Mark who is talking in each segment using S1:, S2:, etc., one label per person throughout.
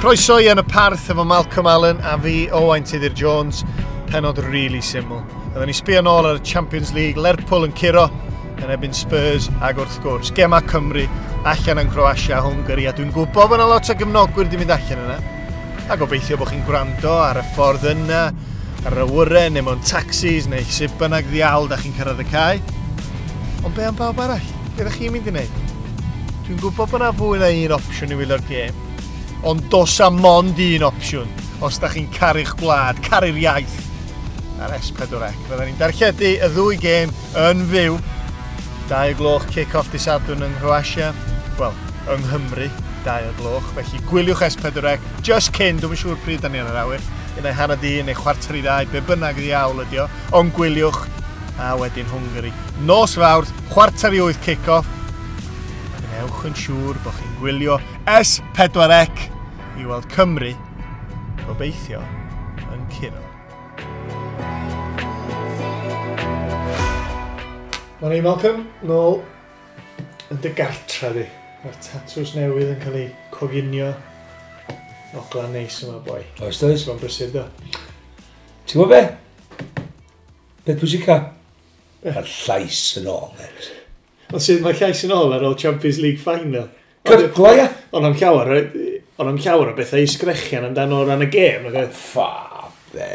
S1: Croeso i Yn y Parth efo Malcolm Allen a fi, Owain Tudur Jones. Penod really syml. Oedden ni sbio nôl ar y Champions League, Lerpwl yn curo yn erbyn Spurs ac wrth gwrs, Gema Cymru allan yn Croatia, Hungary, a dwi'n gwybod bod yna lot o gefnogwyr wedi mynd allan yna. A gobeithio bod chi'n gwrando ar y ffordd yna, ar yr awyren, neu mewn taxis, neu sut bynnag ddiawl da chi'n cyrraedd y cae. Ond be am bawb arall? Be ydych chi'n mynd i wneud? Dwi'n gwybod bod yna fwy na un opsiwn i wylio'r gêm, ond dos am mond un opsiwn os da chi'n caru'ch gwlad, caru'r iaith ar S4C. Fydden ni'n darlledu y ddwy gêm yn fyw. 2 gloch kick-off dy Sadwrn yng Nghroatia. Wel, yng Nghymru, 2 gloch. Felly gwyliwch S4C just cyn, dwi'n siŵr pryd da ni ar yr awyr. Un ai 1:30 neu 1:45, be bynnag ddiawl ydi o. Ond gwyliwch, a wedyn Hungary. Nos Fawrth, 7:45 kick-off. A gwnewch yn siŵr bod chi'n gwylio S4C i weld Cymru, gobeithio, yn curo. Morning Malcolm, nôl yn dy gartra di. Mae'r tatws newydd yn cael ei coginio. Ogla neis yma, boi.
S2: Oes, does?
S1: Ti'n brysur, do?
S2: Ti'n gwybod be? Beth pwysica? Mae'r llais yn ôl, mate.
S1: Ond sydd mae llais yn ôl ar ôl Champions League final.
S2: Cyrglo, ia?
S1: Ond am llawer, ond am llawer o bethau i sgrechian amdano o ran y gêm. Nag oedd?
S2: Ffa, be.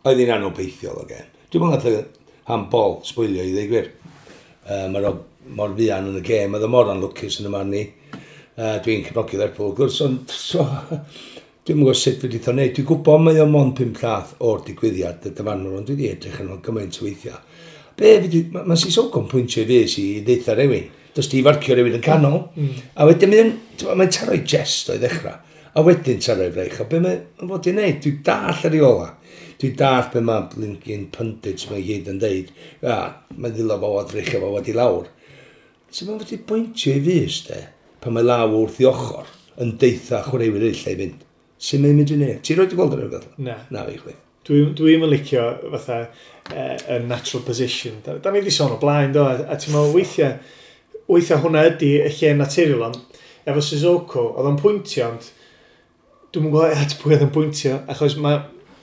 S2: Oedd hi'n anobeithiol o gêm. Dwi'n meddwl nath y handball sbwylio i ddweud gwir. Mae'r mor fuan yn y gêm, oedd o mor anlwcus yn y man ni. Dwi'n cefnogi Lerpwl, wrth gwrs, ond so, dwi'n gwybod sut wedi o wneud. Dwi'n gwybod mae o mond 5 llath o'r digwyddiad, y dyfarnwr, ond dwi wedi edrych yn gymaint o weithiau. Be, mae ma Sissoko yn pwyntio i fys i ddeitha rhywun. Does di farcio rhywun yn canol. A wedyn mae'n mae taro'i jest o'i ddechrau. A wedyn taro'i freich. A be mae'n fod i wneud? Dwi'n dall yr reola. Dwi'n dall be mae blinking pundits mae gyd yn deud. A, mae'n ddilo fo o dreichio fo wedi lawr. So mae'n fod i bwyntio i fys, de, pan mae law wrth i ochr yn deitha chwaraewyr eraill i fynd. Sut mae'n mynd i wneud? Ti'n rhoi di gweld yr rhywbeth?
S1: Na.
S2: Na fi chwith.
S1: Dwi'n yn licio fatha y natural position. Da ni wedi sôn o blaen, do, a ti'n meddwl weithiau hwnna ydy y lle naturiol, ond efo Sissoko, oedd o'n pwyntio, ond dwi'n gwybod at pwy oedd yn pwyntio, achos ma,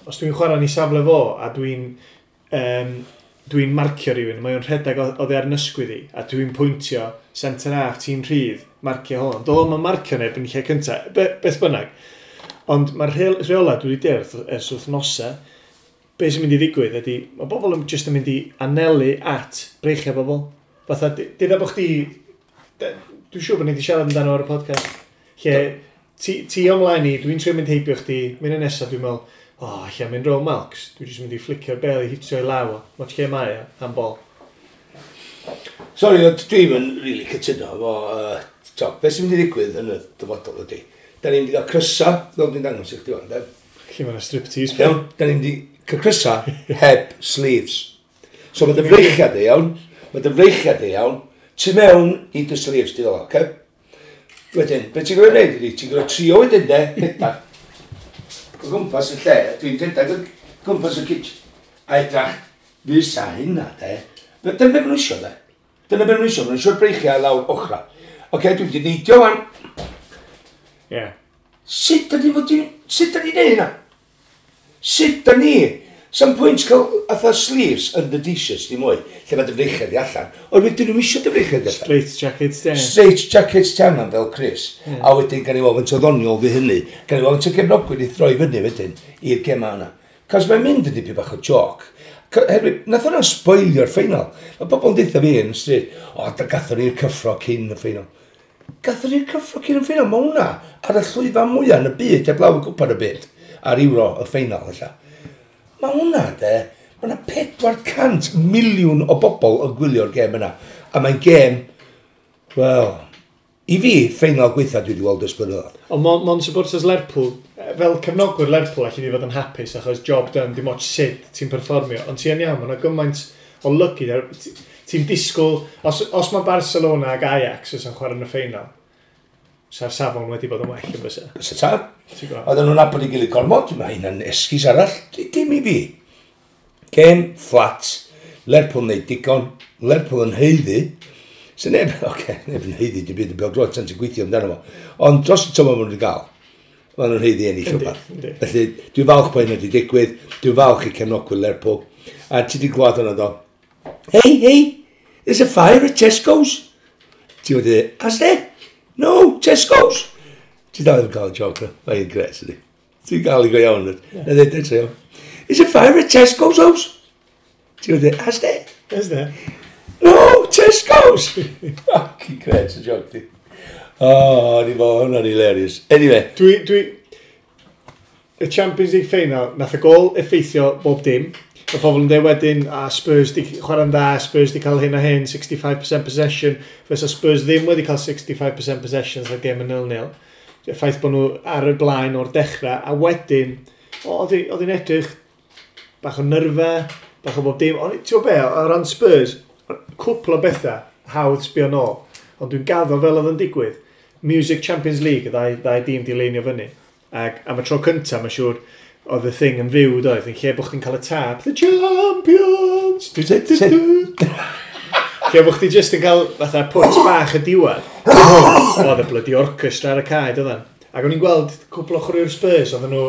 S1: os dwi'n chwarae yn ei safle fo, a dwi'n marcio rhywun, mae o'n rhedeg oddi ar ysgwydd i, a dwi'n pwyntio centre half, ti'n rhydd, marcio hwn. Doedd o'm yn marcio neb yn lle cyntaf, beth bynnag. Ond mae'r rheola dwi wedi deall ers wythnosau, be sy'n mynd i ddigwydd ydy, mae bobl yn just yn mynd i anelu at breichiau bobl. Fatha, dyna bod chdi, dwi'n siŵr bod ni wedi siarad amdano ar y podcast, lle ti ymlaen i, dwi'n trio mynd heibio chdi, mynd yn nesaf, dwi'n meddwl, o, oh, lle mynd rôl Malcs, dwi'n jyst mynd i flicio'r bel i hitio i law o, mod lle mae o, handball.
S2: Sorry, ond dwi'n yn really cytuno efo, to, beth sy'n mynd i ddigwydd yn y dyfodol ydy. Da ni'n mynd i gael crysa, fel dwi'n dangos i chdi wan, de?
S1: Lle mae'n striptease.
S2: Iawn, da ni'n mynd i cael crysa heb sleeves. So mae dy freichiad di, iawn, mae dy freichiad di, iawn, tu mewn i dy sleeves di fel, oce? Wedyn, beth ti'n gwybod wneud ydy, ti'n gwybod trio wedyn de, rhedag. O gwmpas y lle, dwi'n rhedag o gwmpas y kitchen. A edrach, fysa hynna, de. Dyna beth maen nhw isio, de. Dyna beth maen nhw isio, maen nhw isio'r breichiau lawr ochra. Oce, dwi'n mynd i neidio wan.
S1: Ie.
S2: Sut da ni fod i... Sut da ni'n neud hynna? Sut da ni? Sam pwynt cael atha sleeves under t-shirts dim mwy, lle mae dy freichiau di allan. Ond wedyn nhw'n isio dy freichiau di allan.
S1: Straight jackets, de.
S2: Straight jackets ti angen fel Chris. A wedyn gan i weld faint o ddoniol fi hynny. Gan i weld faint o gefnogwyr i throi fyny wedyn i'r gema yna. Cos mae'n mynd yn dipyn bach o joc. Herwydd, nath hwnna spoilio'r ffeinal. Mae bobl yn deutha fi yn y stryd, o, da gathon ni'r cyffro cyn y ffeinal. Gathon ni'r cyffro cyn y ffeinal, mae hwnna ar y llwyfan mwyaf yn y byd, heblaw y gwpan y byd, ar Euro y ffeinal, ella. Mae hwnna, de, mae hwnna 400 miliwn o bobl yn gwylio'r gêm yna. A mae'n gêm, wel, i fi, ffeinal gweitha dwi wedi weld ers blynyddoedd.
S1: Ond mon supporters Lerpwl, fel cefnogwyr Lerpwl, allu di fod yn hapus achos job done, dim ots sut ti'n perfformio. Ond ti yn iawn, mae yna gymaint o lygu. Ti'n disgwyl, os mae Barcelona ag Ajax yn chwarae yn y ffeinal, sa'r safon wedi bod yn well yn bysa.
S2: Bysa tad.
S1: Ti'n gwbod?
S2: Oedden nhw'n nabod ei gilydd gormod, mae hynna'n esgus arall, dim i fi. Gêm flat, Lerpwl wneud digon, Lerpwl yn haeddu. So neb, oce, neb yn haeddu dim byd yn bêl-droed, tan ti'n gweithio amdano fo. Ond dros y tymor maen nhw wedi gael. Maen nhw'n haeddu ennill rhywbeth. Felly, dwi'n falch bod hynny wedi digwydd, dwi'n falch i cefnogwyr Lerpwl. A ti wedi glwad hwnna do? "Hey, hey, there's a fire at Tesco's." Ti wedi, "Has there? No, Tesco's." Ti dal ddim cael y joke na. Mae'n gret, ydi. Ti'n gael i go iawn. Na dweud eto. "There's a fire at Tesco's house." Ti wedi, "Has there?"
S1: Is there?
S2: "No, Tesco's." Fucking gret y joke di. Oh, ni fo, hwnna'n hilarious. Anyway.
S1: Y Champions League final, nath y gol effeithio bob dim. Mae pobl yn dweud wedyn, a Spurs di chwarae'n dda, Spurs di cael hyn a hyn, 65% possession, fysa Spurs ddim wedi cael 65% possession sa gêm yn 0-0. Y ffaith bod nhw ar y blaen o'r dechrau, a wedyn, oedd hi'n edrych bach o nyrfa, bach o bob dim. Ond ti'n gwybod be, o ran Spurs, cwpl o bethau hawdd sbio nôl, ond dwi'n gaddo fel oedd yn digwydd. Music Champions League, y ddau dîm di leinio fyny. Ac am y tro cyntaf, mae'n siŵr, oedd y thing yn fyw, doedd, yn lle bod chdi'n cael y tap, "The Champions! Du, du, du, du." Lle bod chdi just yn cael fatha pwt bach y diwedd. Oedd y bloody orchestra ar y cae, doedden. Ac o'n i'n gweld cwpl o chwaraewyr Spurs, oedden nhw,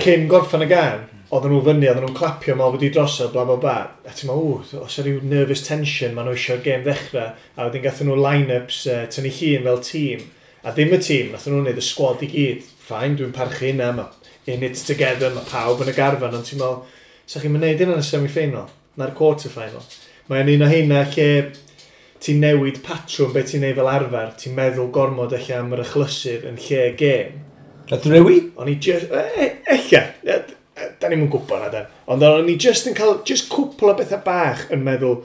S1: cyn gorffan y gan, oedden nhw fyny, oedden nhw'n clapio mal wedi drosodd, bla bla bla. A ti'n meddwl, ww, os yw rhyw nervous tension, maen nhw eisiau'r gêm ddechrau. A wedyn gathen nhw line-ups tynnu llun fel tîm. A ddim y tîm, nathon nhw'n neud y squad i gyd. Fine, dwi'n parchu hynna, mae in it together, mae pawb yn y garfan, ond ti'n meddwl, sa chi'n mynd hynna yn y semi-final, na'r quarter-final? Mae'n un o heina lle ti'n newid patrwm beth ti'n neud fel arfer, ti'n meddwl gormod eich am yr achlysur yn lle gêm.
S2: Nath rewi?
S1: O'n i just, ella, da ni'm yn gwybod na dan. Ond o'n i just yn cael, just cwpl o bethau bach yn meddwl,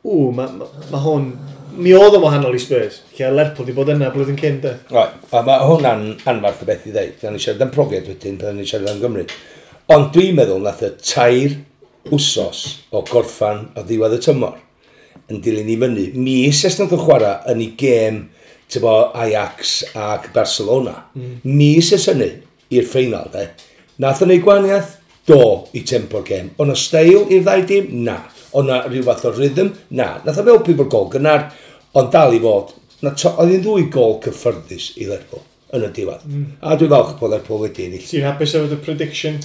S1: ww, mae ma hwn, mi oedd o'n wahanol i Spurs. Lle Lerpwl di bod yna blwyddyn cyn, de.
S2: Right, a mae hwnna'n anfarth o beth i ddeud. Da ni siarad am profiad wedyn, pan ni siarad am Gymru. Ond dwi'n meddwl nath y 3 wsos o gorffan o ddiwedd y tymor yn dilyn i fyny. Mis ers nath o chwarae yn ei gêm tybo, Ajax ac Barcelona. Mis ers hynny i'r ffeinal, de. Nath o'n ei gwahaniaeth? Do, i tempo'r gêm. O'na steil i'r ddau dîm? Na. O'na rhyw fath o rhythm? Na. Nath o helpu bod gol gynnar, ond dal i fod. Oedd hi'n ddwy gol cyffyrddus i Lerpwl yn y diwedd. A dwi'n falch bod Lerpwl wedi ennill.
S1: Ti'n hapus efo dy prediction?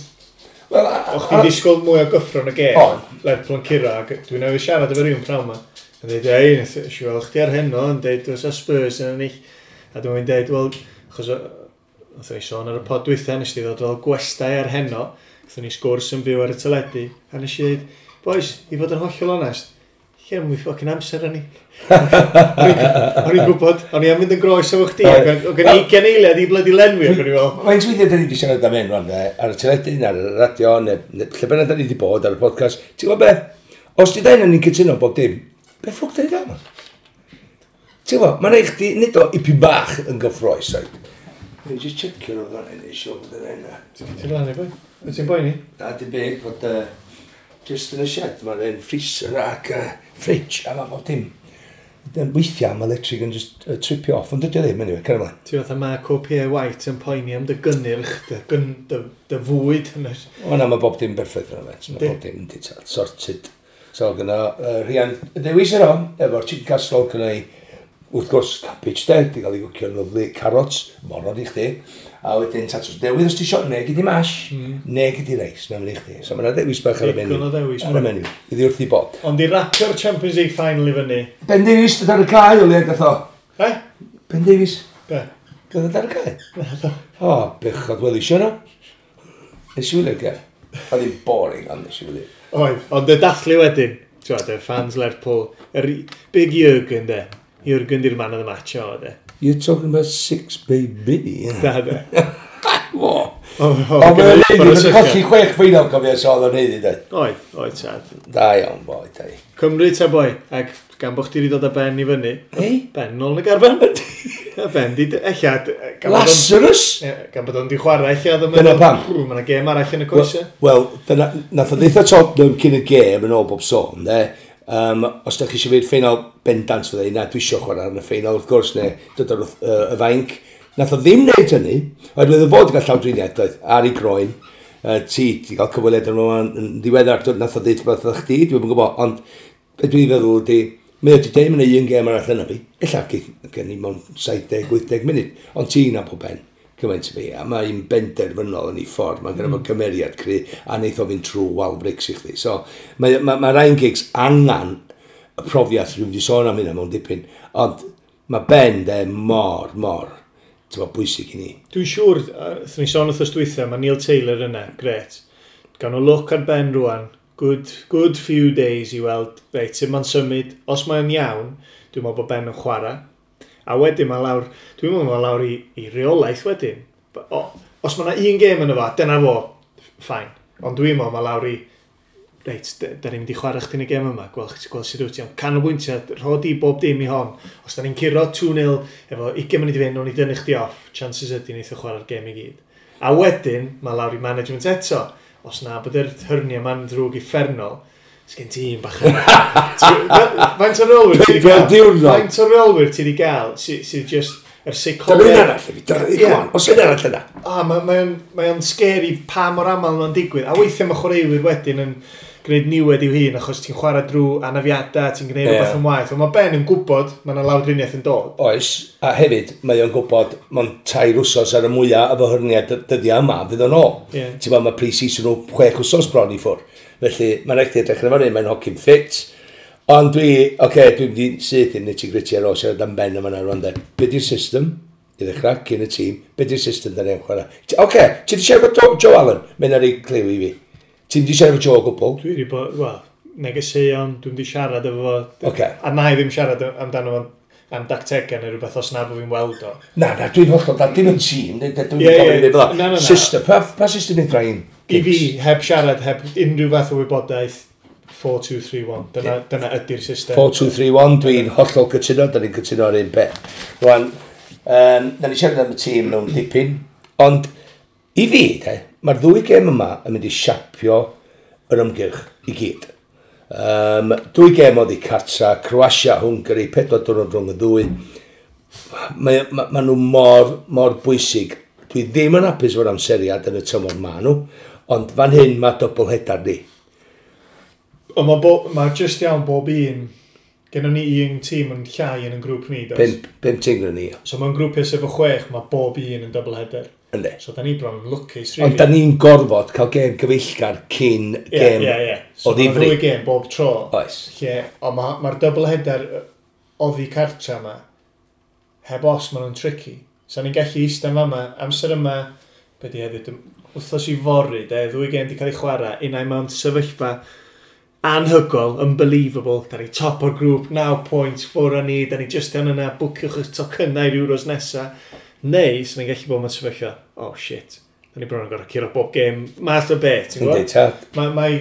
S2: Wel,
S1: O'ch chdi'n disgwyl mwy o gyffro yn y gêm?
S2: On.
S1: Lerpwl yn curo, ac dwi'n newydd siarad efo rhywun prawn ma. Yn dweud, ei, nes i weld chdi ar heno, yn dweud, oes Spurs yn ennill. A dwi'n dweud, wel, achos nathon ni sôn ar y pod dwytha, nes di ddod fel gwestai ar heno, nathon ni sgwrs yn fyw ar y teledu, a nes i dweud, "Boys, i fod yn hollol onest, lle mwy fucking amser yn ni." O'n i'n gwybod, o'n i am fynd yn groes efo chdi, ac o'n gen i 20 eiliad i bloody lenwi, ac o'n i fel,
S2: Faint weithiau da ni wedi siarad am hyn rwan, de, ar y teledu, ar y radio, neu lle bynnag da ni wedi bod ar y podcast. Ti'n gwybod beth? Os di dain ni'n cytuno bob dim, be ffwc da ni dal? Ti'n gwybod, mae'n rhaid chdi, nid o ipyn bach yn gyffroes, right? Dwi'n just checio nhw fan hyn, eisiau bod yn hynna.
S1: Ti'n lan i boi? Wyt ti'n boeni?
S2: Na, dim byd, fod just yn y shed, mae'n un freezer ac fridge, a mae bob dim. Weithiau mae electric yn just tripio off, ond dydy o ddim, anyway, cer ymlaen.
S1: Ti fatha Mark O.P. White yn poeni am dy gynnyrch, dy fwyd.
S2: O na, mae bob dim berffaith yna, met. Mae
S1: Yndi.
S2: bob dim yn di sorted. So, gyda Rhian dewis yno, efo'r chicken casserole, gyda i, wrth gwrs, cabbage de, di gael ei gwcio'n lyfli, carrots, moron i chdi, a wedyn tatws newydd os ti isio, neu gyd i mash, neu gyd i reis, mae'n mynd i chdi. So mae yna ddewis bach ar y menu.
S1: Digon o ddewis,
S2: Ar y menu. Iddi wrth i bod.
S1: Ond i rapio'r Champions League final i fyny.
S2: Ben Davies, dod ar y cae, o le gath o.
S1: Eh?
S2: Ben Davies,
S1: Be?
S2: gath o ar y cae? O, bechod, wel isio no. Nes i wylio'r gêm. Oedd hi'n boring, ond nes i wylio.
S1: Oedd, ond y dathlu wedyn, ti'n gwbod, y fans Lerpwl, yr Big Jürgen de. Jürgen di'r man of the match o, de.
S2: You're talking about six, baby.
S1: Da, de.
S2: O,
S1: O,
S2: O, mae'n neud, mae'n colli chwech ffeinal cofio, so oedd o'n neud i dweud.
S1: Oedd, oedd tad.
S2: Da iawn, boi, da i.
S1: Cymru ta boi, ac gan bod chdi wedi dod â Ben i fyny,
S2: Ei?
S1: Ben nôl yn y garfan. A Ben di, ella, gan bod o'n-
S2: Lazarus?
S1: Ie, gan bod o'n di chwarae, ella, oedd o'n
S2: Dyna pam.
S1: Mae yna gêm arall yn y coesau.
S2: Wel, dyna, nath o ddeitha Tottenham cyn y gêm yn ôl bob sôn, de. Os da chi eisiau fynd ffeinal bendant fydde, na, dwi eisiau chwarae yn y ffeinal, wrth gwrs, neu dod ar y fainc. Nath o ddim wneud hynny, oherwydd o fod i gael llawdriniaeth, doedd, ar ei groen. Ti, ti gael cyfweliad yn yn yn ddiweddar, nath o ddeud rhywbeth wrth chdi, dwi'n gwybod, ond be dwi'n feddwl ydi, mae o wedi deud mae'n un gêm arall yna fi, ella geith gen i mewn 70-80 munud, ond ti'n nabod Ben. Cymaint i fi, a mae'n benderfynol yn ei ffordd, mae'n gyda fo cymeriad cry, a neith o fynd trwy wal brics i chdi. So, mae Ryan Giggs angen y profiad, dwi'n mynd i sôn am hynna mewn dipyn, ond mae Ben de mor, mor, ti'n bod, bwysig i ni.
S1: Dwi'n siŵr, wrth ni sôn wrthos dwytha, mae Neil Taylor yna, gret. Gawn nhw look ar Ben rwan, good few days i weld, reit, sut mae'n symud, os mae'n iawn, dwi'n meddwl bod Ben yn chwarae. A wedyn mae lawr, dwi'n meddwl mae lawr i reolaeth wedyn. Os mae yna un gêm yn fo, dyna fo, fine. Ond dwi'n meddwl mae lawr i, reit, da ni'n mynd i chwarae chdi yn y gêm yma, gweld sut wyt ti, ond canolbwyntio, rho di bob dim i hon. Os da ni'n curo 2-0, efo 20 munud i fynd, nawn ni dynnu chdi off, chances ydy neith o chwarae'r gêm i gyd. A wedyn, mae lawr i management eto. Os na bod yr hernia ma'n ddrwg uffernol, sgen ti un bach yna. Faint o reolwyr ti wedi
S2: Pedwar
S1: gael?
S2: diwrnod.
S1: Faint o reolwyr ti wedi gael sydd just yr
S2: Dyna un
S1: seicoleg?
S2: arall, i fi, dyna, come on, os un arall yna.
S1: A mae o'n scary pa mor aml mae'n digwydd. A weithiau mae chwaraewyr wedyn yn gwneud niwed i'w hun achos ti'n chwarae drwy anafiadau, ti'n gwneud rhywbeth yn waeth. Ond mae Ben yn gwybod mae yna lawdriniaeth yn dod.
S2: Oes, a hefyd, mae o'n gwybod, mae'n 3 wsos ar y mwyaf efo hernia dyddiau yma, fydd o'n ôl. Ti'n bod, mae pre-season nhw 6 wsos bron i ffwrdd. Felly, mae'n rhaid i edrych ar fyny, mae'n hogyn ffit. Ond dwi, oce, okay, dwi'n mynd i syth i'n nitty-gritty ar ôl siarad am Ben yma rwan de. Be di'r system? I ddechrau, cyn y tîm, be di'r system da ni'n chwarae? Oce, okay, ti di siarad efo Joe Allen? Mae'n ar ei cliw i fi. Ti'n di siarad efo Joe o gwbl?
S1: Dwi wedi bod, wel, negeseuon, dwi'n wedi siarad efo fo.
S2: Ocê.
S1: A na i ddim siarad amdano fo am dactegau neu rhywbeth os na bod fi'n weld o.
S2: Na, dwi'n hollol, da, dim yn tîm, dwi'n gofyn i fel
S1: Na, na, na.
S2: System, pa system yn Ryan?
S1: I fi, heb siarad, heb unrhyw fath o wybodaeth, 4-2-3-1. Dyna ydy'r system.
S2: 4, 2, 3, 1, dwi'n hollol cytuno, da ni'n cytuno ar un peth. Rwan, da ni siarad am y tîm mewn dipyn, ond i fi, de, mae'r ddwy gêm yma yn mynd i siapio yr ymgyrch i gyd. Dwy gêm oddi cartra, Croatia, Hungary, 4 diwrnod rhwng y ddwy. Ma nhw mor, mor bwysig. Dwi ddim yn hapus efo'r amseriad yn y tymor ma nhw, ond fan hyn mae double header ni.
S1: Ond mae ma just iawn bob un, gennym ni un tîm yn llai yn y grŵp ni, does?
S2: Pump tîm gyda ni.
S1: So mewn grwpiau sef o chwech, mae bob un yn double header.
S2: Yndi.
S1: So da ni bron yn lwcus, really.
S2: Ond da ni'n gorfod cael gêm gyfeillgar cyn gêm
S1: Ie. So
S2: o
S1: mae'n
S2: ddifri.
S1: ddwy gêm bob tro.
S2: Oes.
S1: Lle, ond mae'r ma double header oddi cartra yma, heb os maen nhw'n tricky. So ni'n gallu eistedd yn fama, amser yma, be di hefyd, wythnos i fory, de, ddwy gêm di cael ei chwarae, unai mewn sefyllfa anhygoel, unbelievable, da ni top o'r grŵp, 9 points, ffwr â ni, da ni just yn yna, bwciwch y tocynnau i'r Euros nesa. Neu, sy'n ni'n gallu bod mewn sefyllfa, oh shit, da ni bron yn gorfod curo bob gêm, math o beth, ti'n
S2: Yndi,
S1: gwybod?
S2: tad.
S1: Mae...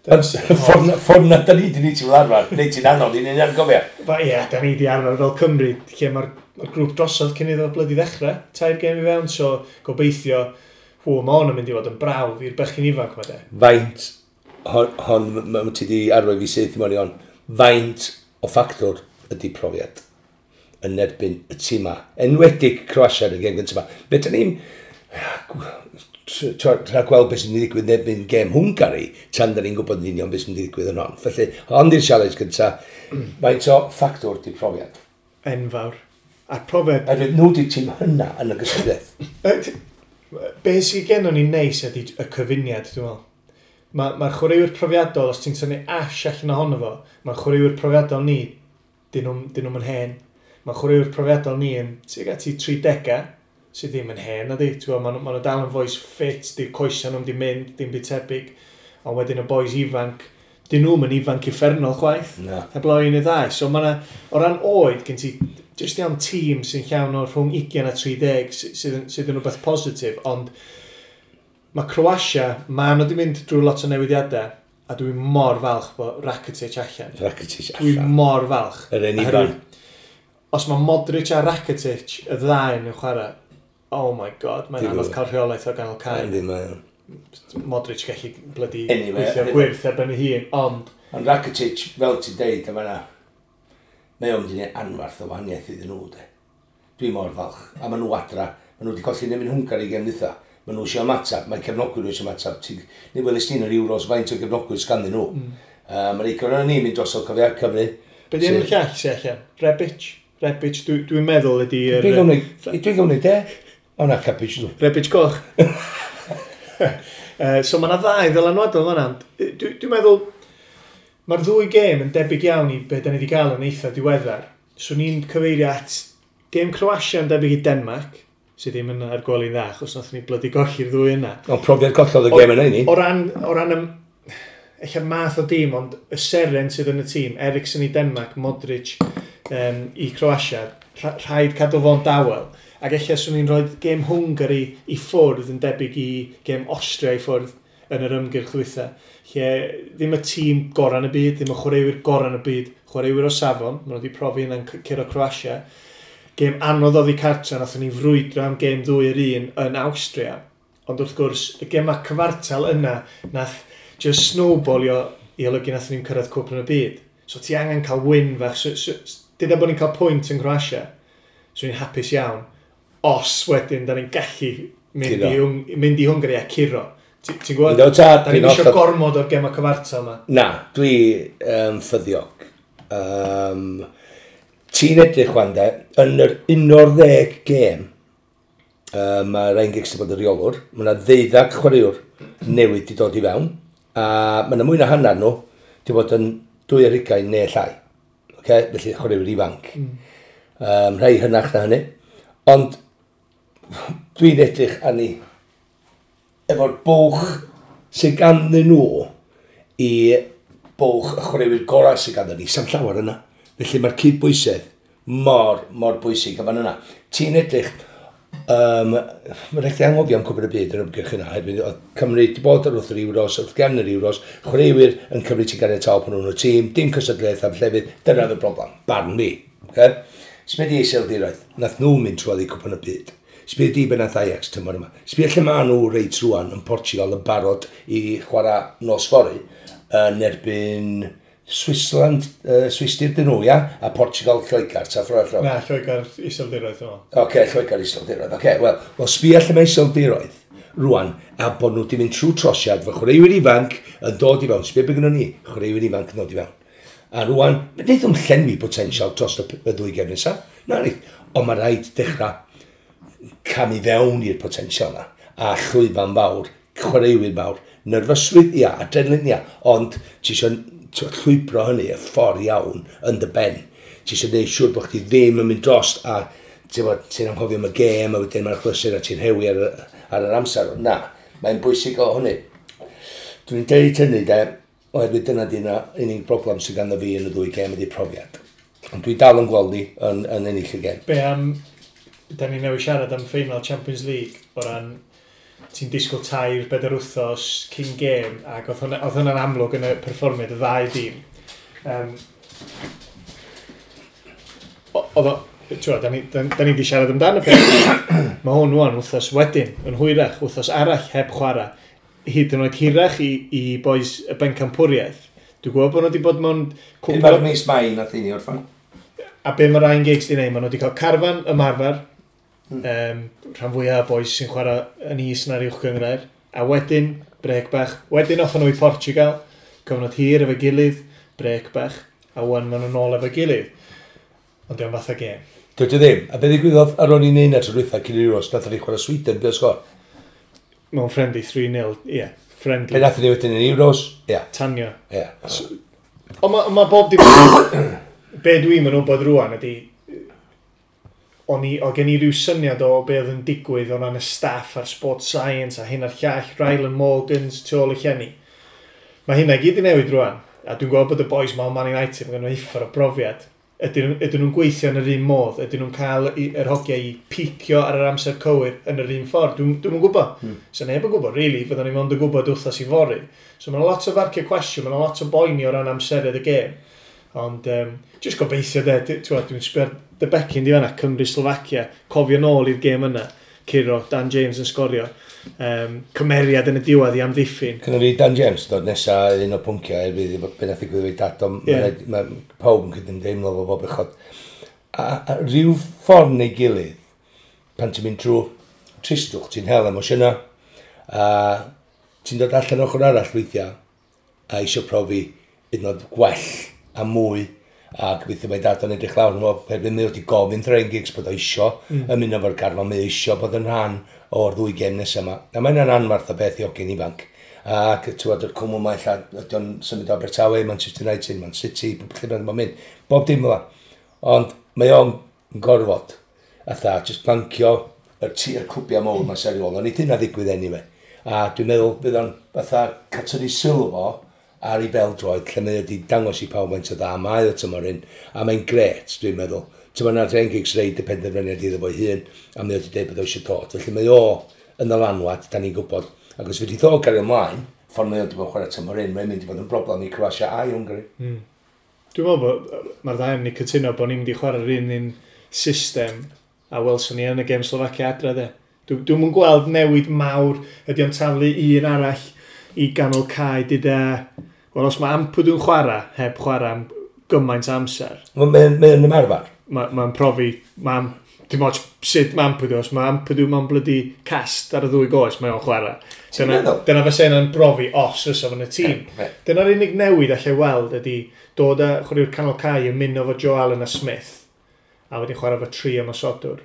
S2: Ond ffordd na da ni di ni ti'n arfer, neu ti'n anodd i ni'n argofio.
S1: Ba, ie, da ni di arfer fel Cymru, lle mae'r ma grŵp drosodd cyn iddo blydi ddechrau, tair gêm i fewn, so gobeithio, hw, mae hwn yn mynd i fod yn brawf i'r bechgyn ifanc ma de.
S2: Faint, hon, ti di arwain fi syth i mewn i hon, faint o ffactor ydy profiad yn erbyn y tîm ma. Enwedig Croatia yn y gêm gyntaf yma. Fe da ni'n rhaid gweld beth sy'n mynd i ddigwydd yn erbyn gêm Hwngari, tan da ni'n gwybod yn union beth sy'n mynd i ddigwydd yn hon. Felly, hon di'r challenge gyntaf. Faint o ffactor ydy profiad?
S1: Enfawr. A'r profiad.
S2: Oherwydd nhw di'r tîm hynna yn y gystadleuaeth.
S1: Be sydd gennon ni neis ydy y cyfuniad, dwi'n meddwl. Mae'r ma chwaraewyr profiadol, os ti'n tynnu Ash allan ohono fo, mae'r chwaraewyr profiadol ni, dyn nhw'n hen. Mae'r chwaraewyr profiadol ni yn tuag at i 30, sydd ddim yn hen, nadi. Ti'n gwbod, ma nhw dal yn fois ffit, di'r coesau nhw'n di mynd, dim byd tebyg. Ond wedyn y boys ifanc, dyn nhw'm yn ifanc uffernol chwaith.
S2: Na.
S1: Heblaw un neu ddau. So mae yna, o ran oed, gen ti jyst iawn tîm sy'n llawn o rhwng 20 a 30 sydd yn rhywbeth positif, ond mae Croatia, mae nhw wedi mynd drwy lot o newidiadau, a dwi'n mor falch bod Rakitic allan.
S2: Rakitic
S1: Dwi'n
S2: allan.
S1: mor falch.
S2: Yr un
S1: Oherwydd
S2: ifanc.
S1: os mae Modric a Rakitic, y ddau yn chwarae, oh my god, mae'n anodd cael rheolaeth o ganol cae.
S2: Yndi, mae o'n.
S1: Modric gallu blydi
S2: Anyway,
S1: gweithio gwyrth ar ben ei hun, ond
S2: Ond Rakitic, fel ti'n deud, yma na, mae o'n mynd i wneud anfarth o wahaniaeth iddyn nhw, de. Dwi mor falch. A maen nhw adra. Maen nhw wedi colli nefyn Hwngari gem dwytha. Maen nhw eisiau ymateb. Mae cefnogwyr nhw eisiau ymateb. Ni welys ni'n yr Euros faint o gefnogwyr sganddyn nhw. Mae'n eico o'n ni'n mynd drosodd cofio Cymru.
S1: Be di enw'r llall sy'n allan? Rebic? Rebic, dwi'n meddwl ydy...
S2: Dwi'n gwneud, de. O na, Kapic nhw.
S1: Rebic goch. So mae yna ddau ddylanwadol fan'na. Dwi'n meddwl, mae'r ddwy gêm yn debyg iawn i be da ni wedi gael yn eitha diweddar. So ni'n cyfeirio at gêm Croatia yn debyg i Denmark, sydd ddim yn ar gwely'n dda, achos nath ni blydi golli'r ddwy yna.
S2: Ond profiad gollodd y gêm yna i ni.
S1: O ran eich math o dîm, ond y seren sydd yn y tîm, Eriksen i Denmark, Modric i Croatia, rhaid cadw fo'n dawel. Ac eich swn i'n rhoi gêm Hungary i ffwrdd yn debyg i gêm Austria i ffwrdd yn yr ymgyrch ddwytha. Lle ddim y tîm gorau yn y byd, ddim y chwaraewyr gorau yn y byd, chwaraewyr o safon, maen nhw wedi profi yna'n curo Croatia. Gêm anodd oddi cartra, nathon ni frwydro am gêm 2-1 yn Awstria. Ond wrth gwrs, y gema cyfartal yna, nath just snowballio i olygu nathon ni'n cyrraedd cwpan y byd. So ti angen cael win fach. So, dyda bod ni'n cael pwynt yn Croatia, so ni'n hapus iawn. Os wedyn, da ni'n gallu mynd i Hwngari a curo. Ti'n gwybod?
S2: Yndw, tad,
S1: Da ni'n
S2: dwi'n
S1: eisiau gormod o'r gema cyfartal yma.
S2: Na, dwi ffyddiog. Ti'n edrych wan de, yn yr 11 gêm, mae Ryan Giggs wedi bod yn reolwr, mae yna 12 chwaraewr newydd wedi dod i fewn, a mae yna mwy na hanner nhw wedi bod yn 22 neu llai. Okay? Felly chwaraewyr ifanc. Rhai hynach na hynny. Ond dwi'n edrych arni efo'r bwch sydd ganddyn nhw i bwch y chwaraewyr gorau sydd ganddyn ni, sa'm llawer yna. Felly mae'r cydbwysedd mor, mor bwysig a fan yna. Ti'n edrych, mae'n rhaid i anghofio am Cwpan y Byd yn ymgyrch yna. Hefyd, oedd Cymru wedi bod ar wrth yr Euros, wrth gefn yr Euros, chwaraewyr yn cymryd ti'n ganiataol pan nhw'n y tîm, dim cystadleuaeth am llefydd, dyna oedd y broblem, barn fi. Okay? Sbia di Iseldiroedd, nath nhw mynd trwodd i Cwpan y Byd. Sbia di be nath Ajax tymor yma. Sbia lle maen nhw reit rwan yn Portugal yn barod i chwarae nos fory yn erbyn Switzerland, Swistir dyn nhw, ia? A Portugal, Lloegr, ta ffordd allan.
S1: Na, Lloegr Iseldiroedd, dwi'n meddwl.
S2: Oce, Lloegr Iseldiroedd. Oce, wel, well, sbia lle mae Iseldiroedd rwan, a bod nhw wedi mynd trwy trosiad fy chwaraewyr ifanc yn dod i fewn. Sbia be gynnon ni, chwaraewyr ifanc yn dod i fewn. A rwan, wneith nhw'n llenwi potensial dros y ddwy gem nesaf. Na ni. Ond mae rhaid dechrau camu fewn i'r potensial na. A llwyfan fawr, chwaraewyr mawr, nerfysrwydd, ia, adrenalin, ia, ond ti eisiau llwybro hynny y ffordd iawn yn dy ben. Ti eisiau gwneud siŵr bod chdi ddim yn mynd drost a ti'n bod, ti'n anghofio am y gêm a wedyn mae'r chlysur a ti'n rhewi ar yr amser. Na, mae'n bwysig o hynny. Dwi'n deud hynny de, oherwydd dyna di'n unig broblem sydd ganddo fi yn y ddwy gêm ydy profiad. Ond dwi dal yn gweld ni yn ennill y gêm.
S1: Be am, da ni newydd siarad am final Champions League o ran ti'n disgwyl 3-4 wythnos cyn gêm ac oedd hwnna'n amlwg yn y perfformiad y ddau dîm. Oedd o, ti'n da ni wedi siarad amdano peth. Mae hwn rwan wythnos wedyn, yn hwyrach, wythnos arall heb chwarae. Hyd yn oed hirach i boys y bencampwriaeth. Dwi'n gwybod bod nhw wedi bod mewn
S2: cwpl 4 mis Mai nath i ni orffan.
S1: A be mae Ryan Giggs wedi gwneud, maen nhw wedi cael carfan ymarfer, rhan fwyaf o boys sy'n chwarae yn is na'r uwch gynghrair, a wedyn, brec bach, wedyn off nhw i Portugal, cyfnod hir efo'i gilydd, brec bach, a wan maen nhw'n ôl efo'i gilydd. Ond diolch fath o gêm.
S2: Dydy ddim. A be ddigwyddodd ar ôl i neud na tro dwytha cyn i'r Euros, nath ni chwarae Sweden, be o sgor?
S1: Mewn friendly 3-0, ie, yeah, friendly.
S2: Be nath ni wedyn yn Euros? Ie.
S1: Tanio.
S2: Ie.
S1: Ond ma, ma bob dim... Be dwi'n mynd wybod rwan ydy... O gen i ryw syniad o be oedd yn digwydd o ran y staff a'r sport science a hyn a'r llall, Ryland Morgans tu ôl y llenni. Mae hynna i gyd i newid rwan. A dwi'n gwybod bod y boys ma o Man United, mae gen nhw uffar o brofiad. Ydyn nhw'n gweithio yn yr un modd? Ydyn nhw'n cael yr hogiau i picio ar yr amser cywir yn yr un ffordd? Dwi'm yn gwybod. So neb yn gwybod, really, fyddwn ni mond yn gwybod wythnos i fory. So mae'n lot o farciau cwestiwn, mae'n lot o boeni o ran amserydd y gêm. Ond, just gobeithio de, dwi'n sbio ar dy becyn di fanna, Cymru-Slovacia, cofio nôl i'r gêm yna, curo, Dan James yn sgorio, cymeriad yn y diwedd i amddiffyn.
S2: Cynna fi Dan James dod nesa un o pwnciau er fydd be nath ddigwydd efo'i dad, ond ma' pawb yn cydymdeimlo fo bob bechod. A rhyw ffordd neu gilydd, pan ti'n mynd trwy tristwch, ti'n hel emosiynau, a ti'n dod allan ochr arall weithiau, a eisiau profi hyd yn oed gwell a mwy, A gobeithio mae dad o'n edrych lawr yn fo, herwydd mae wedi gofyn Ryan Giggs bod o isio ymuno efo'r garfan, mae o isio bod yn rhan o'r ddwy gem nesaf yma. A mae hynna'n anfarth o beth i hogyn ifanc. Ac ti'n gwybod, yr cwmwl yma, ella, ydy o'n symud o Abertawe, Manchester United, Man City, lle bynnag mae'n mynd. Bob dim fel 'na. Ond mae o'n gorfod, atha, just plancio yr clwbiau mawr ma'n seriol, ond nid hynna ddigwydd anyway. A dwi'n meddwl bydd o'n fatha catynnu sylw fo ar ei bel-droed, lle mae wedi dangos i pawb faint o dda mae o tymor hyn, a mae'n gret, dwi'n meddwl. Ti'n meddwl, Ryan Giggs reid y penderfyniad iddo fo'i hun, a mae wedi dweud bod o eisiau dod. Felly mae o yn ddylanwad, da ni'n gwybod. Ac os fedrith o gario ymlaen, ffordd mae o wedi bod yn chwarae tymor hyn, mae'n mynd i fod yn broblem i Croatia a i Hwngari.
S1: Dwi'n meddwl bod mae'r ddau yn ni cytuno bod ni'n mynd i chwarae'r un un system a welson ni yn y gêm Slovacia adre de. Dwi'm yn gweld newid mawr, ydy o'n taflu un arall i ganol cae dyda. Wel, os mae Ampadu yn chwarae, heb chwarae am gymaint o amser.
S2: Mae'n mae ymarfer.
S1: Mae'n ma profi, mae'n dim ots sut mae Ampadu, os mae Ampadu mewn blydi cast ar y ddwy goes, mae o'n chwarae. Dyna, dyna fysa yna'n brofi os fysa fo'n y tîm. Dyna'r unig newid allai weld ydy dod â chwaraewyr canol cae yn mynd efo Joe Allen a Smith, a wedyn chwarae efo tri ymosodwr.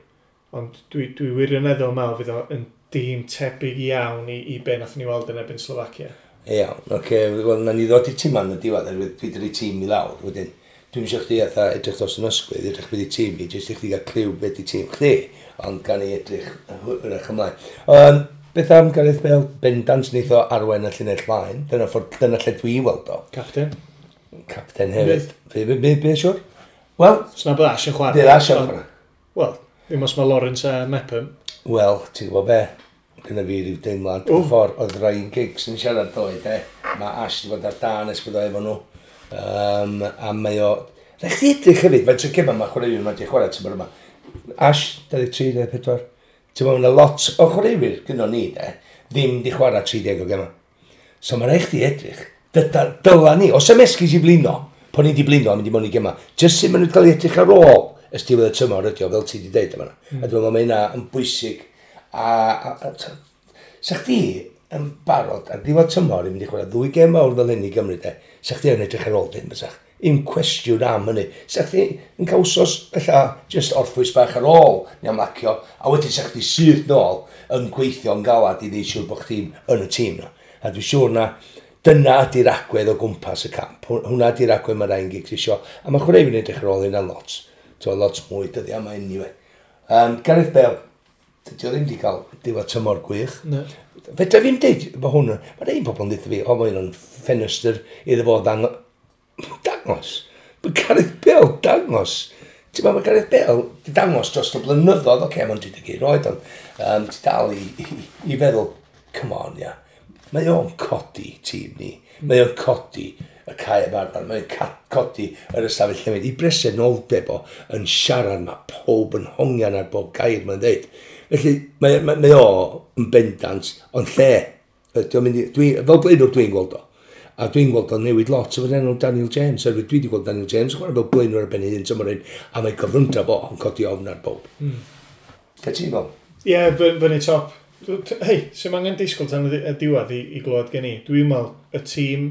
S1: Ond dwi wirioneddol meddwl fydd o yn dîm tebyg iawn i be nath ni weld yn erbyn Slovacia.
S2: Iawn, oce, okay. Wel, na ni ddod i tîm yn y diwedd, oherwydd dwi wedi tîm i lawr, wedyn. Dwi'n eisiau chdi atha edrych dros yn ysgwydd, edrych beth i tîm i, jyst i chdi gael cliw beth i tîm chdi, ond gan i edrych hwyrach ymlaen. Beth am Gareth Bale? Bendant wneith o arwain y llinell flaen, dyna, ffordd, dyna lle dwi'n weld o.
S1: Captain.
S2: Captain hefyd. Be, siwr? Wel...
S1: Sna bod Ash yn chwarae.
S2: Bydd Ash yn chwarae.
S1: Wel, ddim os mae Lawrence a Mepham.
S2: Wel, ti'n gwybod be? Gyda fi ryw deimlad. Y ffordd oedd Ryan Giggs yn siarad ddoe, de. Mae Ash wedi bod ar dan ers bod o efo nhw. A mae o... Rhaid chdi edrych hefyd, faint o gema mae chwaraewyr yma wedi chwarae tymor yma. Ash, 23, 24. Ti'n meddwl, mae lot o chwaraewyr gyda ni, de, ddim di chwarae 30 o gema. So mae rhaid chdi edrych. Dyla ni, os am esgus i blino, pan ni di blino a mynd i mewn i gema, jyst sut maen nhw wedi cael ei edrych ar ôl ys diwedd y tymor ydi o, fel ti wedi deud yma. A dwi'n meddwl mae hynna yn bwysig. A sa chdi yn barod ar ddiwedd tymor i mynd i chwarae ddwy gêm mawr fel hyn i Gymru, de, sa chdi yn edrych ar ôl dim, bysach. Un cwestiwn am hynny. Sa chdi yn cael wsos, ella, just orffwys bach ar ôl neu amlacio, a wedyn sa chdi syth nôl yn gweithio yn galad i wneud siŵr bod chdi'n yn y tîm na. A dwi'n siŵr na dyna ydy'r agwedd o gwmpas y camp. Hwna ydy'r agwedd mae Ryan Giggs isio. A mae chwaraewyr yn edrych ar ôl hynna lot. So, lot mwy dyddiau yma anyway. Gareth Bale, dydy o ddim wedi cael diwedd tymor gwych.
S1: No.
S2: Fedra fi'n deud, mae hwn, mae un pobl yn dweud fi, o, mae hwn yn ffenestr iddo fo dangos. Mae Gareth Bale dangos. Ti'n meddwl, mae Gareth Bale di dangos dros y blynyddoedd, oce, okay, mae'n 31 oed, ond ti dal i feddwl, come on, ia. Mae o'n codi tîm ni. Mae o'n codi y cae ymarfer. Mae o'n codi yr ystafell newid. I bresenoldeb o yn siarad, mae pob yn hongian ar bob gair mae'n dweud. Felly, mae o yn bendant, ond lle, ydy o'n mynd i, fel blaenwr dwi'n gweld o. A dwi'n gweld o'n newid lot efo'r enw Daniel James. Oherwydd dwi wedi gweld Daniel James yn chwarae fel blaenwr ar ben ei hun tymor hyn, a mae cyflymdra fo yn codi ofn ar bob. Lle ti'n meddwl?
S1: Ie, yeah, fyny top. Hei, sy'n angen disgwyl tan y diwedd i glywed gen i. Dwi'n meddwl y tîm...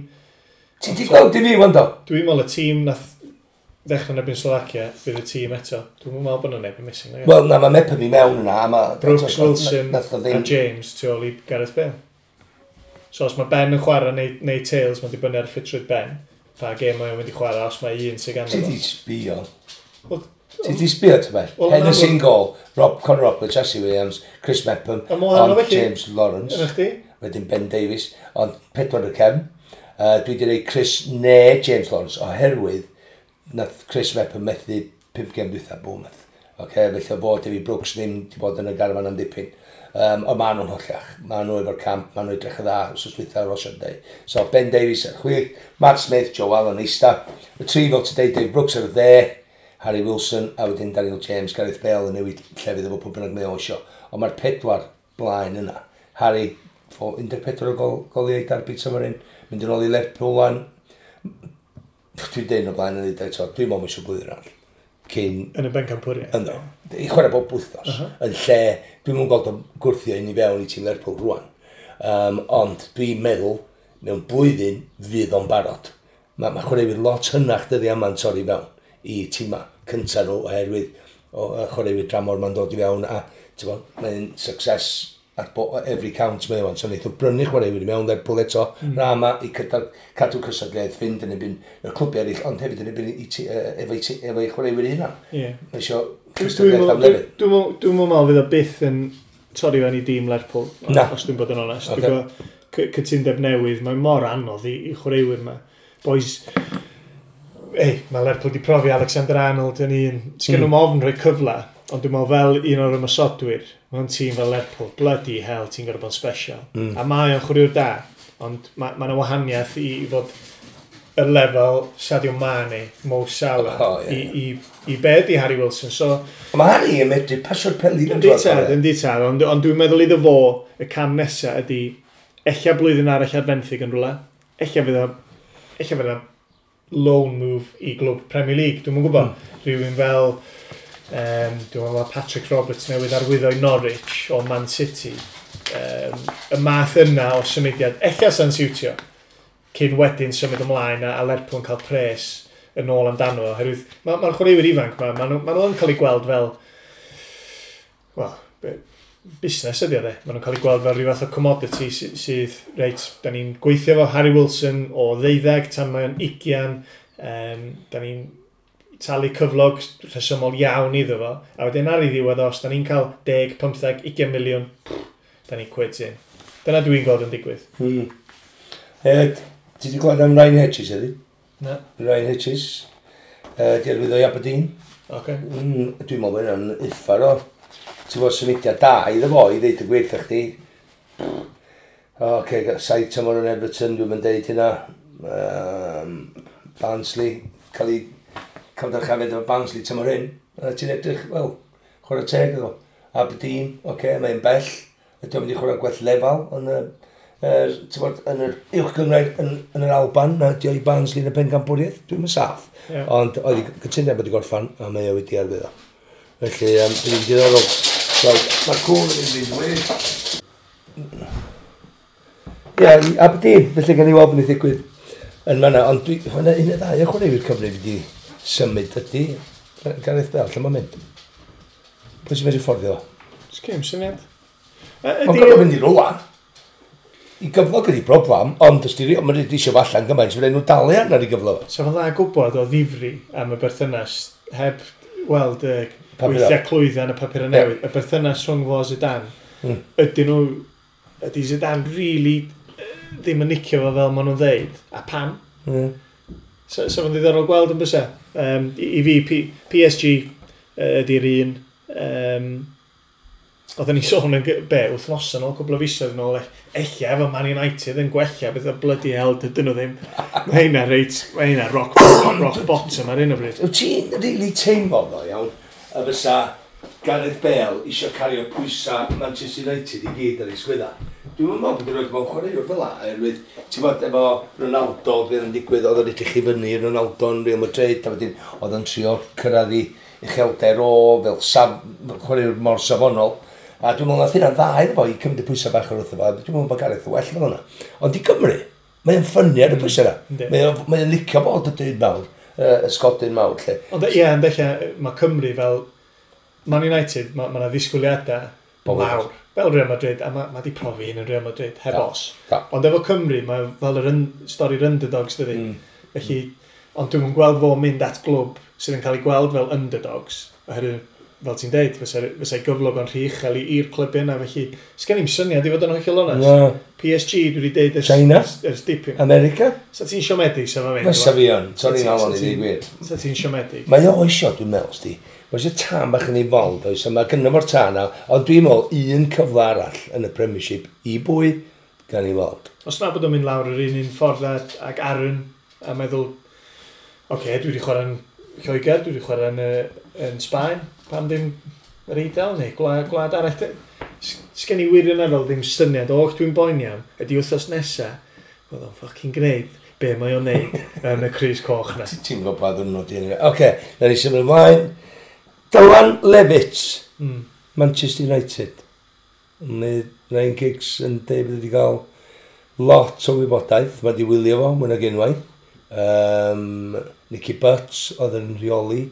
S2: Ti di gweld i fi, wando?
S1: Dwi'n meddwl y tîm nath ddechrau yn erbyn Slovacia, fydd y tîm eto. Dwi'n meddwl bod yna neb yn missing.
S2: Wel, na, mae Mepham i mewn yna. A ma,
S1: Brooks, Wilson a James tu ôl i Gareth Bale. So os mae Ben yn chwarae neu Tails, mae'n dibynnu ar ffitrwydd Ben. Pa gêm mae'n mynd i chwarae os mae un sydd ganddo.
S2: Ti di sbio? Ti di sbio, ti'n beth? Henderson gol, Rob, Conor Roberts, Jesse Williams, Chris Mepham, ond James Lawrence. Wedyn Ben Davies, ond pedwar y cefn. Dwi wedi rhoi Chris neu James Lawrence oherwydd nath Chris Mepham methu 5 gêm dwytha Bournemouth. Okay, felly o fod David Brooks ddim wedi bod yn y garfan am dipyn. Ond maen nhw'n hollach. Maen nhw efo'r camp, maen nhw edrych yn dda, wrth dwytha ar Sunday. So Ben Davies ar chwith, Matt Smith, Joe Allen eista. Y tri fel ti deud, Dave Brooks ar y dde, Harry Wilson, a wedyn Daniel James, Gareth Bale yn newid llefydd efo pwy bynnag mae o isio. Ond mae'r pedwar blaen yna. Harry, 14 o goliau derby tymor hyn, mynd yn ôl i Lerpwl wan. Dwi'n deud o blaen yn dweud eto, dwi'n meddwl eisiau blwyddyn arall. Cyn...
S1: Yn y bencampwriaeth.
S2: Ynddo. I chwarae bob wythnos. Yn lle, dwi'n mwyn gweld o'n gwrthio un i fewn i tîm Lerpwl rwan. Ond dwi'n meddwl, mewn blwyddyn, fydd o'n barod. Mae chwaraewyr lot hynach dyddiau yma'n torri fewn. i tîma cyntaf nhw oherwydd o chwaraewyr dramor ma'n dod i fewn a mae'n success at every count mae o'n. So wnaeth o brynu chwaraewyr i mewn Lerpwl eto, Rama i cadw cystadleuaeth fynd yn erbyn y clwbiau eraill, ond hefyd yn erbyn efo'i chwaraewyr ei hunan. Mae eisiau cystadleuaeth am lefydd.
S1: Dwi'n meddwl fydd o byth yn torri fewn i dîm Lerpwl, os dwi'n bod yn onest. Okay. Dwi'n gwybod cytundeb newydd, mae mor anodd i chwaraewyr yma. Boys, ei, mae Lerpwl wedi profi Alexander Arnold yn un. Sgen nhw'm ofn rhoi cyfle, ond dwi'n meddwl fel un o'r ymosodwyr, mewn tîm fel Lerpwl, bloody hell, ti'n gorfod bod yn special. A mae o'n chwaraewr da, ond mae yna wahaniaeth i fod y lefel Sadio Mane, Mo Salah,
S2: Oh, ie,
S1: i be di Harry Wilson. So,
S2: Mae Harry yn medru pasio'r peli.
S1: Yndi tad, yndi tad, ond dwi'n meddwl iddo fo, y cam nesaf ydy, ella blwyddyn arall ar fenthyg yn rhywle, ella fydd o loan move i glwb Premier League, dwi'm yn gwybod. Rhywun fel, dwi'n meddwl Patrick Roberts newydd arwyddo i Norwich o Man City. Y math yna o symudiad, ella sa'n siwtio, cyn wedyn symud ymlaen a Lerpwl yn cael pres yn ôl amdano fo. Oherwydd mae'r chwaraewyr ifanc ma, ma nhw yn cael eu gweld fel, wel, busnes ydy o de. Maen nhw'n cael eu gweld fel rhyw fath o commodity sydd, reit, da ni'n gweithio efo Harry Wilson o 12 tan mae'n 20, da ni'n talu cyflog rhesymol iawn iddo fo, a wedyn ar ei ddiwedd os da ni'n cael 10, 15, 20 miliwn, pff, da ni'n quits in. Dyna dwi'n gweld yn digwydd.
S2: Ti wedi clywed am Ryan Hedges heddi?
S1: Na.
S2: Ryan Hedges. Di arwyddo i Aberdeen. Dwi'n meddwl bod hynna'n uffar o. Ti'n bod symudiad da iddo fo i ddeud y gwir wrth chdi. O, okay, 7 tymor yn Everton, dwi'n mynd deud hynna. Barnsley, cael ei cael dyrchafiad efo Barnsley tymor hyn. A ti'n edrych, wel, chwarae teg iddo. Aberdeen, oce, okay, mae'n bell. Ydy o'n mynd i chwarae gwell lefel yn y, ti'n bod, yn yr uwch gynghrair yn yr Alban, na di o i Barnsley yn y pencampwriaeth, dwi'n mynd saff. Ond oedd i cytundeb wedi gorffan, a mae o wedi arwyddo. Felly, bydd hi'n diddorol. Gweld, mae'r cwn yn mynd i'n wych. Ie, i Aberdeen, felly gan i weld beth ddigwydd yn fan'na. Ond dwi, hwnna un neu ddau o chwaraewyr Cymru wedi symud ydy. Gareth Bale, lle mae'n mynd? Pwy sy'n medru fforddio fo?
S1: Sgem syniad.
S2: Mae'n gorfod mynd i rwla. I gyflog ydi broblem, ond os di, mae'n rhaid eisiau fo allan gymaint, fydd nhw dalu arno i gyflog.
S1: So fo'n dda gwybod o ddifri am y berthynas, heb weld y
S2: Papur.
S1: weithiau clwydda yn y papur newydd, y berthynas rhwng fo a Zidane, ydy Zidane really ddim yn nicio fo fel maen nhw'n ddeud, a pam? So fo'n ddiddorol gweld yn bysa. I fi, PSG ydy'r un. Oedden ni sôn yn be, wythnos yn ôl, cwbl o fisoedd yn ôl, ella efo Man United yn gwella, beth o bloody hell dydyn nhw ddim. Mae hynna reit, mae hynna rock bottom ar hyn o bryd.
S2: Wyt ti'n really teimlo ddo, iawn, y fysa Gareth Bale eisiau cario pwysa Manchester United i gyd ar ei sgwydda? Dwi'n meddwl bod yn rhoi mewn chwaraewr fel la, oherwydd, ti'n bod efo Ronaldo, beth yn digwydd, oedd o'n edrych i fyny Ronaldo yn Real Madrid, a wedyn oedd o'n trio cyrraedd i uchelder o fel chwaraewr mor safonol. A dwi'n meddwl nath hynna'n dda iddo fo i cymryd y pwysau bach o'r wrtho fo. Dwi'n meddwl bod Gareth yn well fel yna. Ond i Gymru, mae'n ffynnu ar y pwysau yna. Mae o'n licio bod y dyn mawr, y sgodyn mawr, lle.
S1: Ond ie, ond ella mae Cymru fel Man United, mae yna ddisgwyliadau
S2: Bob
S1: mawr. Fel Real Madrid, a mae di profi hyn yn Real Madrid, heb os. Ond efo Cymru, mae fel yr stori'r underdogs, dydy. Felly, ond dwi'n gweld fo mynd at glwb sydd yn cael ei gweld fel underdogs, oherwydd, fel ti'n deud, fysa gyflog o'n rhy uchel i'r clwb yna, felly sgen i'm syniad i fod yn hollol onest.
S2: Na.
S1: PSG, dwi wedi deud
S2: China?
S1: ers dipyn.
S2: America?
S1: Sa ti'n siomedig sa fo'n mynd?
S2: Fysa fi yn, torri'n alon i ddweud gwir.
S1: Sa ti'n siomedig?
S2: Mae o isio, dwi'n meddwl, sti. Mae eisiau tân bach yn ei fol, does, a mae gynno fo'r tân na, ond dwi'n meddwl un cyfle arall yn y Premiership i bwy gan i weld.
S1: Os na bod o'n mynd lawr yr un un ffordd ag Aaron, a meddwl, oce, okay, dwi wedi chwarae yn Lloegr, dwi wedi chwarae yn Sbaen, pam ddim yr Eidal neu gwlad arall. Sgen i wirioneddol ddim syniad o, dwi'n boeni am, ydy wythnos nesa, oedd o'n fucking gwneud be mae o'n neud yn y crys coch na.
S2: Ti'n gwybod pa ddwrnod di hynny. Oce, na ni symud ymlaen. Dylan Levitt, Manchester United. Mae Ryan Giggs yn deud bod wedi cael lot o wybodaeth. Mae wedi wylio fo, mwy nag unwaith. Nicky Butt oedd yn rheoli.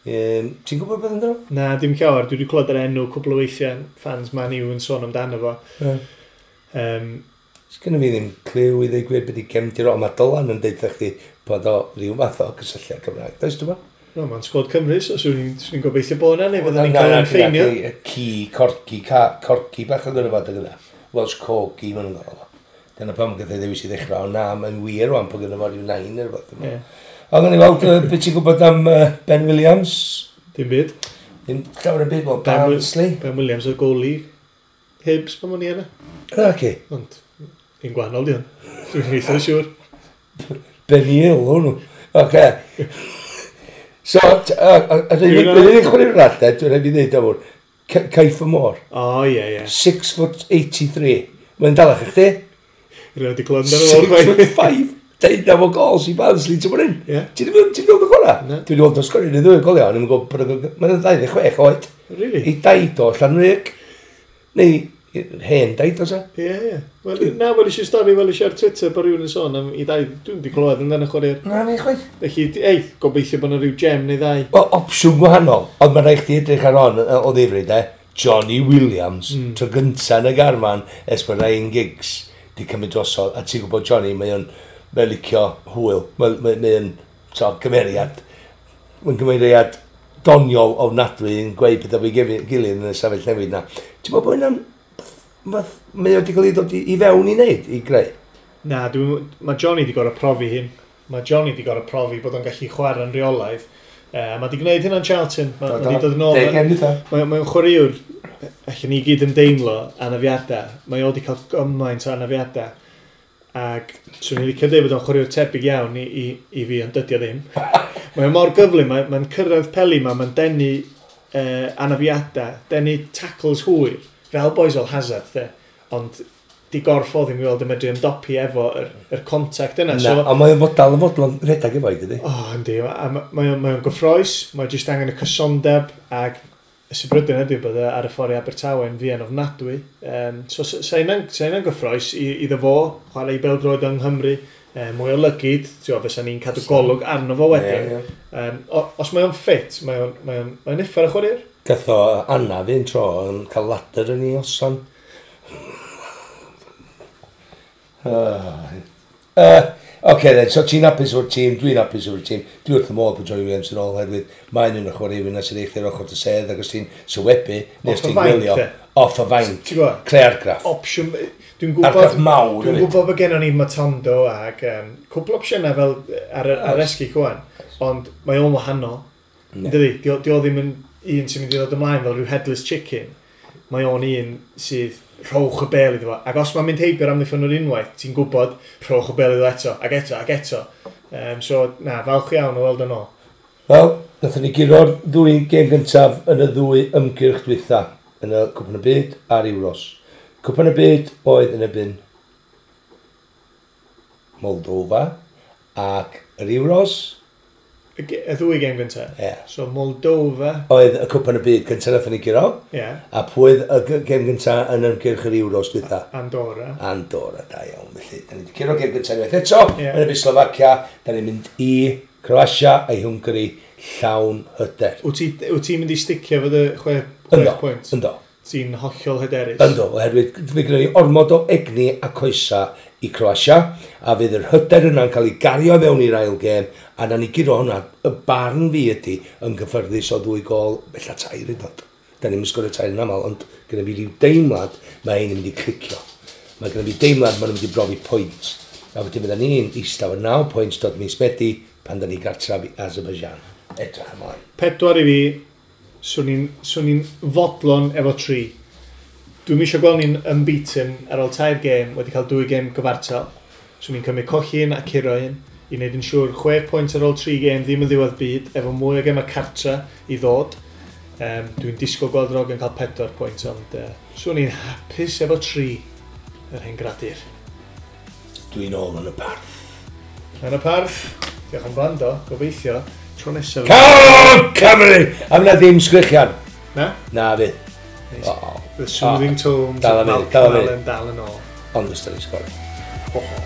S2: Ti'n gwybod beth amdano?
S1: Na, dim llawer. Dwi wedi clywed yr enw cwpl o weithiau, fans Man U yn sôn amdano fo.
S2: Yeah. Sgynna fi ddim cliw i ddweud gwir beth i gefndir o, ond mae Dylan yn deud chdi bod o ryw fath o cysylltiad Cymraeg. Does dwi'n
S1: No, mae'n sgwad Cymru, so swn i'n gobeithio bod yna, neu fydden ni'n cael ein ffeinio.
S2: Ci, corgi, corgi bach yn gyda fo, dyna. Welsh Corgi, maen nhw'n gael o. Dyna pam gath ei ddewis i ddechrau, ond na, mae'n wir rwan bod gyda fo ryw nain neu rhywbeth. Yeah. Ond gawn ni weld beth ti'n gwybod am Ben Williams?
S1: Dim byd.
S2: Dim llawer yn byd, wel, Barnsley.
S1: Ben Williams oedd goalie Hibs pan o'n i yna.
S2: Na, ci.
S1: Ond, un gwahanol di hwn. Dwi'n eitha siŵr.
S2: Ben Hill, hwnnw. Oce. So, yr unig chwaraewr arall, de, dwi'n rhaid i ddeud am hwn, Caiff y Môr.
S1: O, ie, ie.
S2: 6 foot 83. Mae'n dalach i chdi?
S1: Rwy'n wedi clywed amdano fo.
S2: 6 foot 5. 19 o gols i Barnsley, ti'n mwyn?
S1: Ie.
S2: Ti'n wedi gweld y chwarae?
S1: Na.
S2: Dwi wedi gweld o'n sgorio yn y ddwy goliau, ond i'n gwybod bod mae'n 26 oed.
S1: Really?
S2: I daid o Llanrug. Neu hen daid o sa.
S1: Ie, ie. Wel, na, wel eisiau stori, wel eisiau ar Twitter bod rhywun yn sôn am i dau. Dwi'n wedi clywed amdano chwarae'r.
S2: Na, ni chwaith.
S1: Felly, ei, gobeithio bod yna rhyw gem neu ddau.
S2: Wel, opsiwn gwahanol, ond mae'n rhaid chdi edrych ar hon o ddifri, de. Johnny Williams, tro gynta yn y garfan, ers bod Ryan Giggs di cymryd drosodd, a ti'n gwybod Johnny, mae o'n mae'n licio hwyl, mae'n mae, mae o'n so, gymeriad, mae'n gymeriad doniol ofnadwy yn gweud pethau fo'i gilydd yn y safell newid na. Ti'n meddwl bod hynna'n mae o wedi cael ei ddod i fewn i wneud, i greu?
S1: Na, mae Johnny wedi gorfod profi hyn. Mae Johnny wedi gorfod profi bod o'n gallu chwarae'n rheolaidd. Mae wedi gwneud hynna'n Charlton. Mae wedi dod yn ôl. Mae'n chwaraewr, allan ni gyd yn deimlo anafiadau. Mae o wedi cael gymaint o anafiadau. Ac swn i'n licio dweud bod o'n chwaraewr tebyg iawn i fi, ond dydy o ddim. Mae o mor gyflym, mae'n cyrraedd peli ma, mae'n denu anafiadau, denu tackles hwyr, fel boys fel Hazard, de. Ond di gorff o ddim i weld yn medru ymdopi efo yr contact yna.
S2: Na,
S1: So,
S2: ond mae'n fodal yn fodlon rhedeg efo i, dydy?
S1: O, yndi. A mae o'n gyffroes, mae jyst angen y cysondeb, ac y sybrydyn ydy bod e ar y ffordd i Abertawe yn fuan ofnadwy. So, sa hynna'n gyffroes iddo fo, chwarae i bêl-droed yng Nghymru, mwy o lygid, ti'n gwbod, fysa ni'n cadw golwg arno fo wedyn.
S2: Ie, ie.
S1: Os mae o'n ffit, mae o'n uffar y chwaraewr.
S2: Gath o anaf un tro yn cael ladder yn ei osan. Oce then, so ti'n hapus o'r tîm, dwi'n hapus o'r tîm, dwi wrth y modd bod Johnny Williams yn ôl oherwydd mae'n un o'r chwaraewyr yna sy'n eich i'r ochr dy sedd ac os ti'n sylwebu, neu os
S1: Off y
S2: ti'n
S1: fainc,
S2: gwylio,
S1: de.
S2: off y fainc,
S1: Ti'n gwbod?
S2: creu argraff.
S1: Opsiwn, dwi'n gwybod,
S2: Argraff mawr
S1: dwi'n
S2: hefyd.
S1: gwybod bod gennon ni Matondo ac cwpl opsiynau fel ar esgu cwan, ond mae o'n wahanol. Dydy, di o ddim yn un sy'n mynd i ddod ymlaen fel rhyw headless chicken. Mae o'n un sydd rhowch y bel iddo fo. Ac os mae'n mynd heibio'r amddiffynwr unwaith, ti'n gwybod rhowch y bel iddo eto, ac eto, ac eto. So, na, falch iawn o weld yn ôl.
S2: Wel, nathon ni guro'r ddwy gêm gyntaf yn y ddwy ymgyrch dwytha yn y Cwpan y Byd a'r Euros. Cwpan y Byd oedd yn erbyn Moldova ac yr Euros
S1: Y ddwy gêm gyntaf.
S2: Ie.
S1: So, Moldova,
S2: Oedd y Cwpan y Byd gyntaf nathon ni guro.
S1: ie,
S2: A pwy oedd y gêm gyntaf yn ymgyrch yr Euros dwytha?
S1: Andorra.
S2: Andorra, da iawn. Felly, da ni wedi curo gêm gyntaf unwaith eto.
S1: Ie.
S2: Yn erbyn Slovacia, da ni'n mynd i Croatia a i Hwngari llawn hyder.
S1: Wyt ti'n mynd i sticio fo dy 6
S2: Ynddo,
S1: pwynt?
S2: ynddo.
S1: Ti'n hollol hyderus?
S2: Ynddo, oherwydd fe gyda ni ormod o egni a coesa i Croatia, a fydd yr hyder yna'n cael ei gario fewn i'r ail gêm, a na ni guro hwnna, y barn fi ydy yn gyffyrddus o 2 gôl, bella 3 yn dod. Da ni'n sgorio 3 yn aml, ond gyda fi ryw deimlad mae ein yn mynd i clicio. Mae gyda fi deimlad maen nhw'n mynd i brofi pwynt. A wedyn fydda ni'n eistedd efo 9 pwynt dod mis Medi pan da ni gartref i Azerbaijan. Edrych ymlaen.
S1: 4 i fi, swn i'n fodlon efo 3. Dwi'm eisiau gweld ni'n unbeaten ar ôl 3 gêm, wedi cael 2 gêm gyfartal. Swn i'n cymryd colli un a curo un, i wneud yn siŵr 6 pwynt ar ôl 3 gêm ddim yn ddiwedd byd, efo mwy o gemau cartra i ddod. Dwi'n disgwyl gweld yr ogyn cael 4 pwynt, ond swn i'n hapus efo 3 yr hen gradur.
S2: Dwi'n ôl yn y parth.
S1: Yn y parth, diolch am gwrando, gobeithio, tro nesaf.
S2: Come Cymru! A fyna ddim sgrichian.
S1: Na?
S2: Na fydd.
S1: Nice.
S2: O,
S1: The soothing tones
S2: Dal
S1: of
S2: am funud,
S1: Malcolm
S2: dal am funud.
S1: Allen dal yn ôl.
S2: Ond os da ni'n sgorio.
S1: Ho, ho.